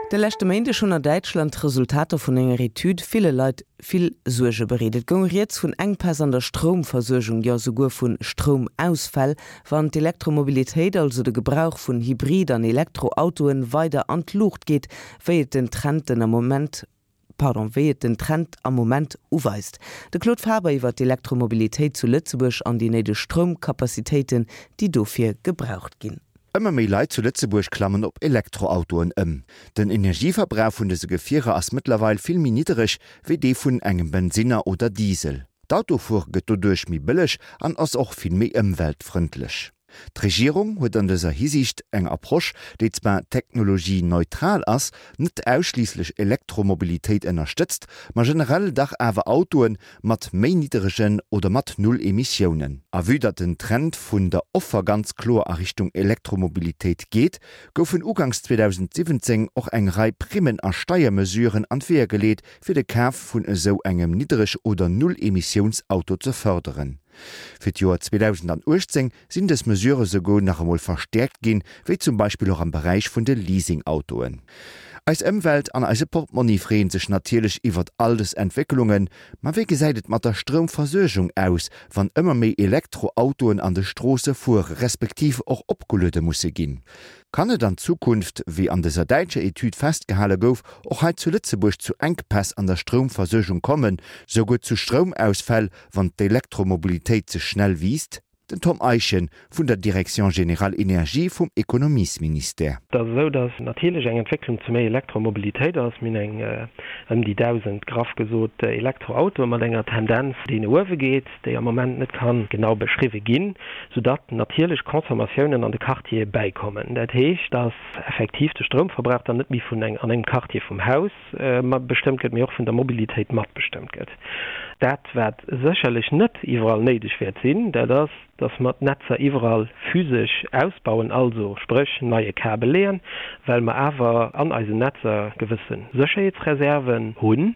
De leschte Méindeg hunn a Däitschland d'Resultater vun enger Etüd ville Leit vill Suerge bereet. Et goung rieds vun Enkpäss an der Stroumversuergung, jo souguer vu Stroumausfäll, wann d'Elektromobilitéit, also de Gebrauch vun Hybrid an Elektroautoen, weider an d'Luucht geet, wéi et den Trend den Moment pardon, wéi et den Trend am Moment uweist. De Claude Faber iwwer d'Elektromobilitéit zu Lëtzebuerg an déi néideg Stroumcapacitéiten, déi dofir gebraucht ginn. Ëmmer méi Leit zu Lëtzebuerg klammen op Elektroautoen ëm. Den Energieverbrauch vun dëse Gefierer ass mëttlerweil vill méi niddereg wéi dee vun engem Bensinner oder Diesel. D'Autofuere gëtt doduerch méi bëlleg an ass och vill méi ëmweltfrëndlech. D'Regierung huet an dëser Hisiicht eng Approche, déi zwar technologieneutral ass, net ausschliisslech Elektromobilitéit ënnerstëtzt, ma generell dach awer Autoe mat méi nidderegen oder mat null Emissiounen. A vue datt den Trend vun der Offer ganz kloer a Richtung Elektromobilitéit geet, goufen uganks 2017 och eng Rei Primmen a Steiermesuren an d'Weeër geleet, fir de Kaf vun esou engem Niddereg oder Null-Emissiouns-Auto ze fërderen. Fir d'Joer 2018 sinn dës Mesurë souguer nach emol verstäerkt ginn, wéi zum Beispill och am Beräich vun de Leasingautoen. Eis Ëmwelt an eise Portmonni freeën sech natierlech iwwert all dës Entwécklungen, ma wéi gesäit et mat der Stroumversuergung aus, wann ëmmer méi Elektroautoen an de Stroosse fuere respektiv och opgeluede musse ginn? Kann et an Zukunft, wéi an dëser däitscher Etüd festgehale gouf, och hei zu Lëtzebuerg zu Enkpäss an der Stroumversuergung kommen, souguer zu Stroumausfäll, wann d'Elektromobilitéit ze schnell wiisst? Den Tom Eischen vun der Direction générale Énergie vum Ekonomiesministère. Et ass esou, datt natierlech eng Entwécklung zu méi Elektromobilitéit ass. Mir hunn eng ëm déi 1.000, graff gesot, Elektroautoe mat enger Tendenz, déi no uewe geet, déi am Moment net ka genau beschriwwe ginn, soudatt natierlech Consommatiounen an de Quartiere bäikommen. Dat heescht, datt effektiv de Stroumverbrauch dann net méi vun an engem Quartier vum Haus matbestëmmt gëtt, mee och vun der Mobilitéit matbestëmmt gëtt. Dat, wat sécherlech net iwwerall néideg wäert sinn, dat ass, dass mer d'Netzer iwwerall physesch ausbauen, also spréch neie Kabel leeën, well mer awer an eisen Netzer gewësse Sécherheetsreserven hunn,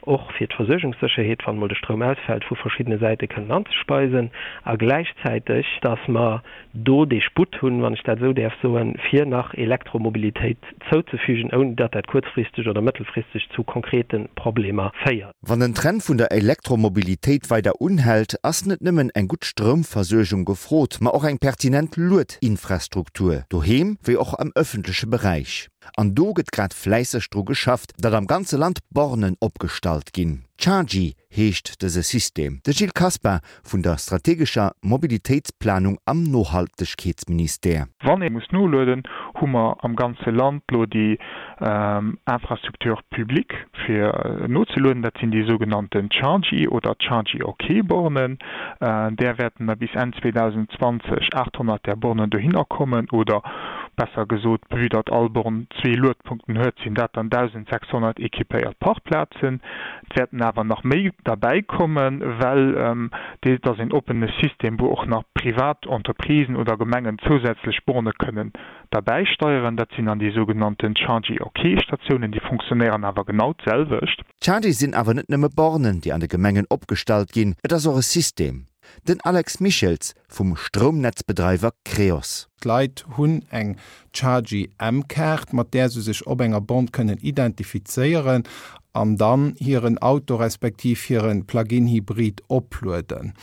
och fir d'Versuergungssécherheet, wann emol de Stroum ausfält, vu verschiddene Säite kënnen anzespeisen, a gläichzäiteg, dass mer do dee Sputt hunn, wann ech dat esou däerf soen, fir nach Elektromobilitéit zouzefügen, ouni datt dat kuerzfristeg oder mëttelfristeg zu konkrete Problemer féiert. Wann den Trend vun der Elektromobilitéit weider unhält, ass net nëmmen eng gutt Stroumversuergung gefrot, ma och eng pertinent Luedinfrastruktur, doheem wéi och am ëffentleche Beräich. An do gëtt grad fläisseg dru geschafft, datt am ganze Land Bornen opgestallt ginn. Chargy heescht dëse System. De Gilles Caspar vun der strategescher Mobilitéitsplanung am Nohaltegkeetsministère. Wann ee muss nolueden, hu mer am ganze Land lo déi Infrastructure publique fir nozelueden. Dat sinn déi sougenannten Chargy oder Chargy OK Bornen. Där wäerten der bis Enn 2020 800 där Bornen dohinner kommen oder besser gesot, vue datt all Born zwee Luedpunkten huet, sinn dat dann 1.600 équipéiert Parkplazen. Et wäerten awer nach méi derbäi kommen, well et ass een oppene System, wou och nach privat Entreprisen oder Gemengen zousätzlech Borne kënnen derbäisteieren. Dat sinn dann déi sougenannten Chargy-OK-Statiounen. Déi funktionéieren awer genau d'selwecht. D'Chargy sinn awer net nëmme Bornen, déi an de Gemengen opgestallt ginn, et ass och e System. Den Alex Michels vum Stroumnetzbedreiwer Creos. D'Leit hunn eng Chargy M-Kaart, mat där se sech op enger Born kënnen identifizéieren an dann hiren Auto respektiv hire Plug-in-Hybrid oplueden.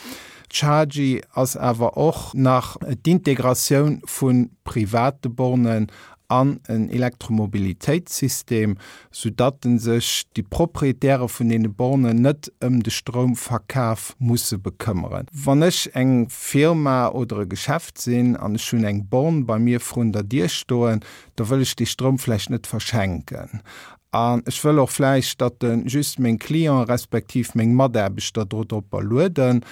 Chargy ass awer och nach d'Integratioun vu private Bornen an en Elektromobilitéitssystem, soudatt sech déi Proprietäre vun deene Bornen net ëm de Stroumverkaf musse bekëmmeren. Wann ech eng Firma oder e Geschäft sinn an ech hunn eng Born bei mir vrun der Dier stoen, da wëll ech dee Stroum vläicht net verschenken. An ech wëll och vläicht, datt e just meng Clienten respektiv meng Mataarbechter do dropper lueden.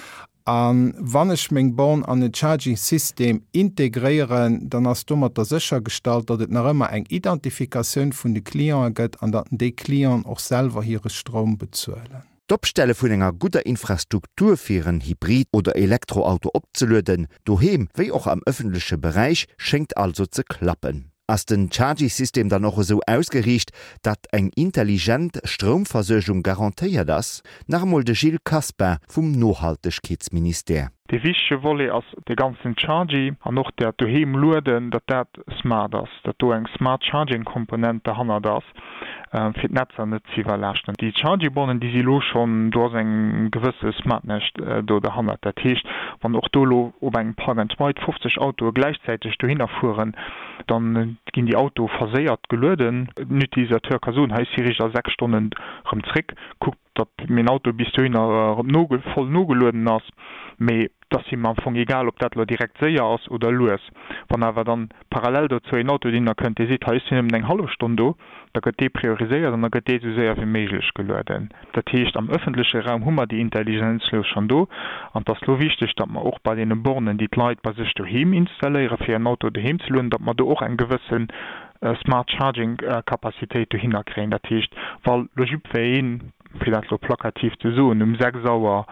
A wann ech meng Born an en Charging System integréieren, dann ass domatter séchergestallt, datt et nach ëmmer eng Identifikatioun vun de Clienten gëtt an datt déi Clienten och selwer hire Stroum bezuelen. D'Opstelle vun enger gudder Infrastruktur fir en Hybrid oder Elektroauto opzelueden, doheem wéi och am ëffentleche Beräich, schéngt also ze klappen. Ass den Chargy-System dann och esou ausgeriicht, datt eng intelligent Stroumversuergung garantéiert ass? Nach emol de Gilles Caspar vum Nohaltegkeetsministère. Dee wichtege Volet ass dee ganzen Chargy an och dat doheem lueden, datt dat smart ass, datt do eng smart charging Komponent derhannert ass, fir d'Netzer net ze iwwerlaaschten. Déi Chargy-Bornen, déi si elo schonn, do ass eng gewësse Smartness do derhannert. Dat heescht, wann och do elo op engem Park and Ride 50 Autoe gläichzäiteg dohinner fueren, da ginn déi Autoe verséiert gelueden. Den Utilisateur ka soen, hei ech si riicht a 6 Stonnen erëm zréck, kuckt datt mäin Auto bis dohinner erëm voll nogelueden ass, mee et ass him am Fong egal, ob dat elo direkt séier ass oder lues. Wann awer dann parallel dozou een Auto dohinner kënnt, dee seet, hei ech sinn nëmmen eng hallef Stonn do, da gëtt dee prioriséiert an da gëtt dee esou séier wéi méiglech gelueden. Dat heescht, am ëffentleche Raum hu mer déi Intelligenz elo schonn do an et ass elo wichteg, datt mer och bei deene Bornen, déi d'Leit bei sech doheem installéieren, fir hiren Auto doheem ze lueden, datt mer do och eng gewësse Smart Charging Capacitéit dohinner kréien. Dat heescht, wa lo jiddwereen, fir dat lo plakativ ze soen, um 6 Auer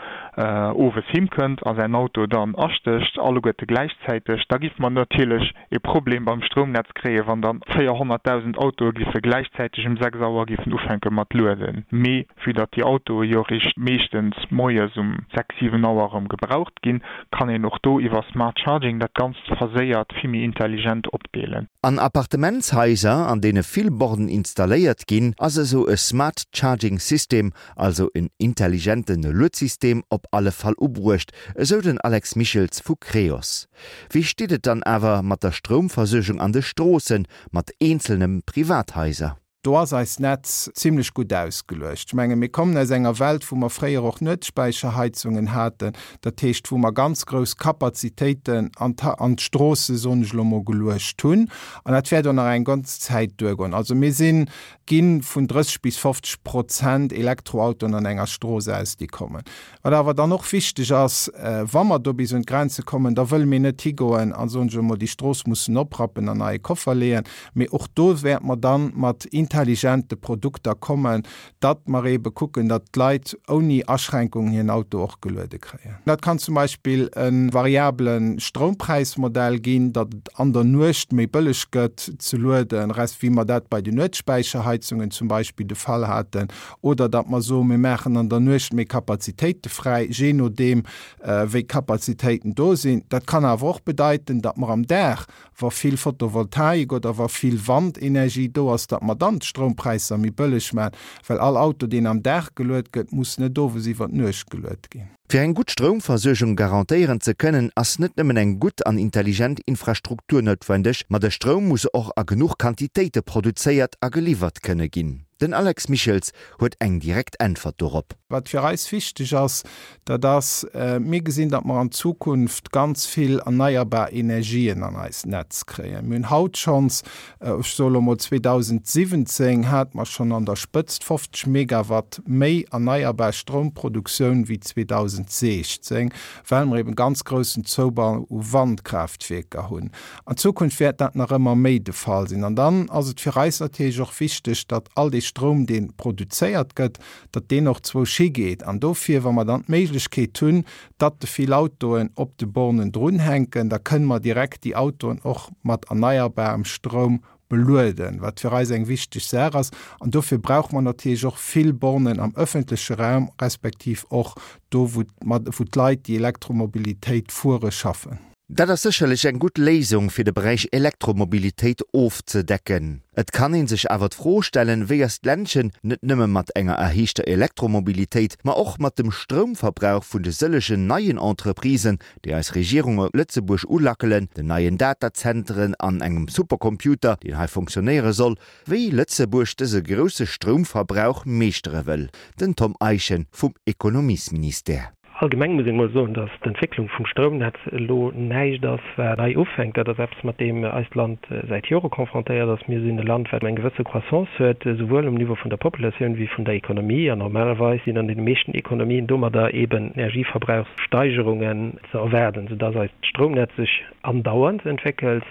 owes heem kënnt a säin Auto dann astécht, alleguerte gläichzäiteg, da géife mer natierlech ee Problem beim Stroumnetz kréien, wann dann 400.000 Autoe géife gläichzäiteg um 6 Auer géifen ufänke mat lueden. Mee vue datt déi Autoe jo eréischt meeschtens moies um 6, 7 Auer erëm gebraucht ginn, kann een och do iwwer Smart Charging dat Ganzt verséiert vill méi intelligent opdeelen. An Appartementshaiser, an deene vill Bornen installéiert ginn, ass esou e Smart Charging System, also en intelligente Luedsystem, op alle Fall ubruecht, esou den Alex Michels vu Creos. Wéi steet et dann awer mat der Stroumversuergung an de Stroossen, mat eenzelne Privathaiser? Do ass eist Netz zimlech gutt ausgeluecht. Ech menge mir kommen aus enger Welt, wou mer fréier och Nuetsspäicherheizungen haten, dat heescht wou mer ganz grouss Kapazitéiten an an d'Stroosse, soen ech elo mol, geluecht hunn. An dat wäert och nach eng ganz Zäit duergoen. Also mir sinn, gi vun 30 bis 50 Prozent Elektroautoen an enger Strooss aus, déi kommen. Wat awer dann och wichteg ass, wa mer do bis un d'Grenze kommen, da wëlle mir net higoen a, soen ech emol, déi Strooss mussen oprappen an neie Koffer leeën, mee och do wäerte mer dann mat intelligente Produkter kommen, datt mer eebe kucken, datt d'Leit ouni Aschränkungen hiren Auto och geluede kréien. Dat kann zum Beispill e variabele Stroumpräismodell ginn, datt et an der Nuecht méi bëlleg gëtt ze lueden, resp. Wéi mer dat bei den Nuetsspäicherheizungen zum Beispill de Fall haten, oder datt mer soen, mir maachen an der Nuecht méi Kapazitéite fräi, jee nodeem wéi d'Kapazitéiten do sinn. Dat kann awer och bedeiten, datt mer am Dag, wa vill Photovoltaik oder wa vill Wandenergie do ass, datt mer dann d'Stroumpräisser méi bëlleg maachen, well all Auto, deen am Dag geluet gëtt, muss net owes iwwer d'Nuecht geluet ginn. Fir eng gutt Stroumversuergung garantéieren ze kënnen, ass net nëmmen eng gutt an intelligent Infrastruktur noutwendeg, ma de Stroum muss och a genuch Quantitéite produzéiert a geliwwert kënne ginn. Den Alex Michels huet eng direkt Äntwert dorop. Wat fir eis wichteg ass, dat ass, mir gesinn, datt mer an Zukunft ganz vill erneierbar Energien an eist Netz kréien. Mir hunn haut schonns Ech soe lo mol, 2017 hate mer schonn an der Spëtzt 50 Megawatt méi erneierbar Stroumproduktioun wéi 2016, well mer eben ganz groussen Zoubau u Wandkraaftwierker hunn. An Zukunft wäert dat nach ëmmer méi de Fall sinn. An dann ass et fir eis natierlech och wichteg, datt all dee Stroum, dee produzéiert gëtt, datt deen och zwousch higeet. An dofir, wa mer dann d'Méiglechkeet hunn, datt de vill Autoen op de Bornen drunhänken, da kënne mer direkt déi Autoen och mat erneierbarem Stroum belueden, wat fir eis eng wichteg Saach ass. An dofir brauche mer natierlech och vill Bornen am öffentleche Raum, respektiv och do, wou d'Leit, déi Elektromobilitéit fuere, schaffen. Dat ass sécherlech eng gutt Léisung, fir de Beräich Elektromobilitéit ofzedecken. Et kann ee sech awer d'Fro stellen, wéi eist Ländchen net nëmme mat enger erhéichter Elektromobilitéit, ma och mat dem Stroumverbrauch vun de sëllegen neien Entreprisen, déi eis Regierung op Lëtzebuerg ulackelen, den neien Datazenteren an engem Supercomputer, deen hei fonctionnéiere soll, wéi Lëtzebuerg dëse grousse Stroumverbrauch meeschtere wëll. Den Tom Eischen vum Ekonomiesministère. Allgemeng muss een emol soen, datt d'Entwécklung vum Stroumnetz elo näischt ass, wat nei ufänkt. Dat ass eppes, mat deem eist Land säit Jore confrontéiert ass. Mir sinn e Land, wat eng gewësse Croissance huet, esouwuel um Niveau vun der Populatioun wéi vun der Ekonomie. An normalerweis sinn an deene meeschten Ekonomien domadder eben Energieverbrauchssteigerungen ze erwaarden, soudatt eist Stroumnetz sech andauernd entwéckelt,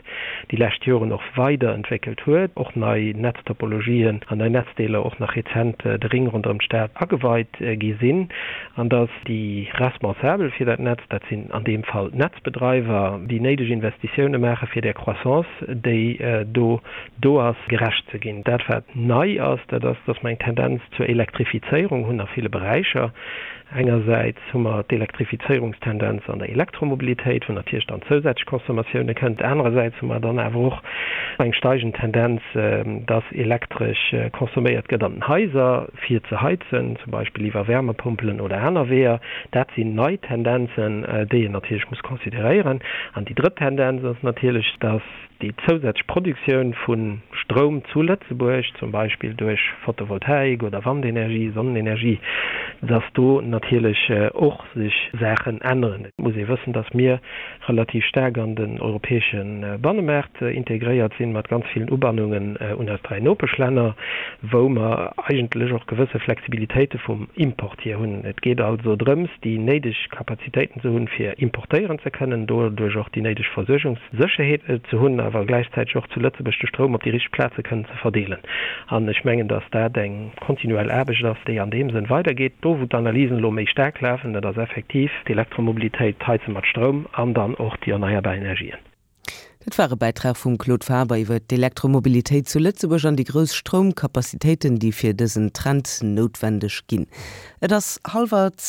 déi lescht Joren och weider entwéckelt huet, och nei Netztopologien an nei Netzdeeler och nach rezent de Ring ronderëm d'Stad ageweit gi sinn, an datt déi Responsabel fir dat Netz, dat sinn an deem Fall d'Netzbedreiwer, déi néideg Investitioune maache fir där Croissance, déi do do ass, gerecht ze ginn. Dat wat nei ass, dat ass, dass mer eng Tendenz zur Elektrifizéierung hunn a ville Beräicher. Engersäits hu mer d'Elektrifizéierungstendenz an der Elektromobilitéit, wou natierlech dann zousätzlech Consommatioune kënnt. Anerersäits hu mer dann awer och eng steigend Tendenz, dass Elektresch consomméiert gëtt an den Haiser, fir ze heizen, zum Beispill iwwer Wärmepompelen oder aner Weeër. Dat sinn nei Tendenzen, déi een natierlech muss consideréieren. An déi drëtt Tendenz ass natierlech, dass déi zousätzlech Produktioun vu Stroum zu Lëtzebuerg, zum Beispill duerch Photovoltaik oder Wandenergie, Sonnenenergie, dass do natierlech och sech Saachen änneren. Et muss ee wëssen, dass mir relativ staark an den europäesche Bannemaart integréiert sinn, mat ganz villen Ubannungen un eis 3 Nopeschlänner, wou mer eigentlech och gewësse Flexibilitéite vum Import hier hunn. Et geet also drëms, déi néideg Kapazitéiten ze hunn, fir importéieren ze kënnen, doduerch och déi néideg Versuergungssécherheet ze hunn, awer gläichzäiteg och zu Lëtzebuerg de Stroum op déi richteg Plaze kënnen ze verdeelen. An ech mengen, dass dat eng kontinuell Aarbecht ass, déi an deem Sënn weidergeet. Do, wou d'Analysen elo méi staark lafen, dat ass effektiv d'Elektromobilitéit, d'Heize mat Stroum an dann och déi erneierbar Energien. Dat war e Bäitrag vum Claude Faber iwwer d'Elektromobilitéit zu Lëtzebuerg an déi grouss Stroumkapazitéiten, déi fir dësen Trend noutwendeg ginn. Et ass hallwer 10.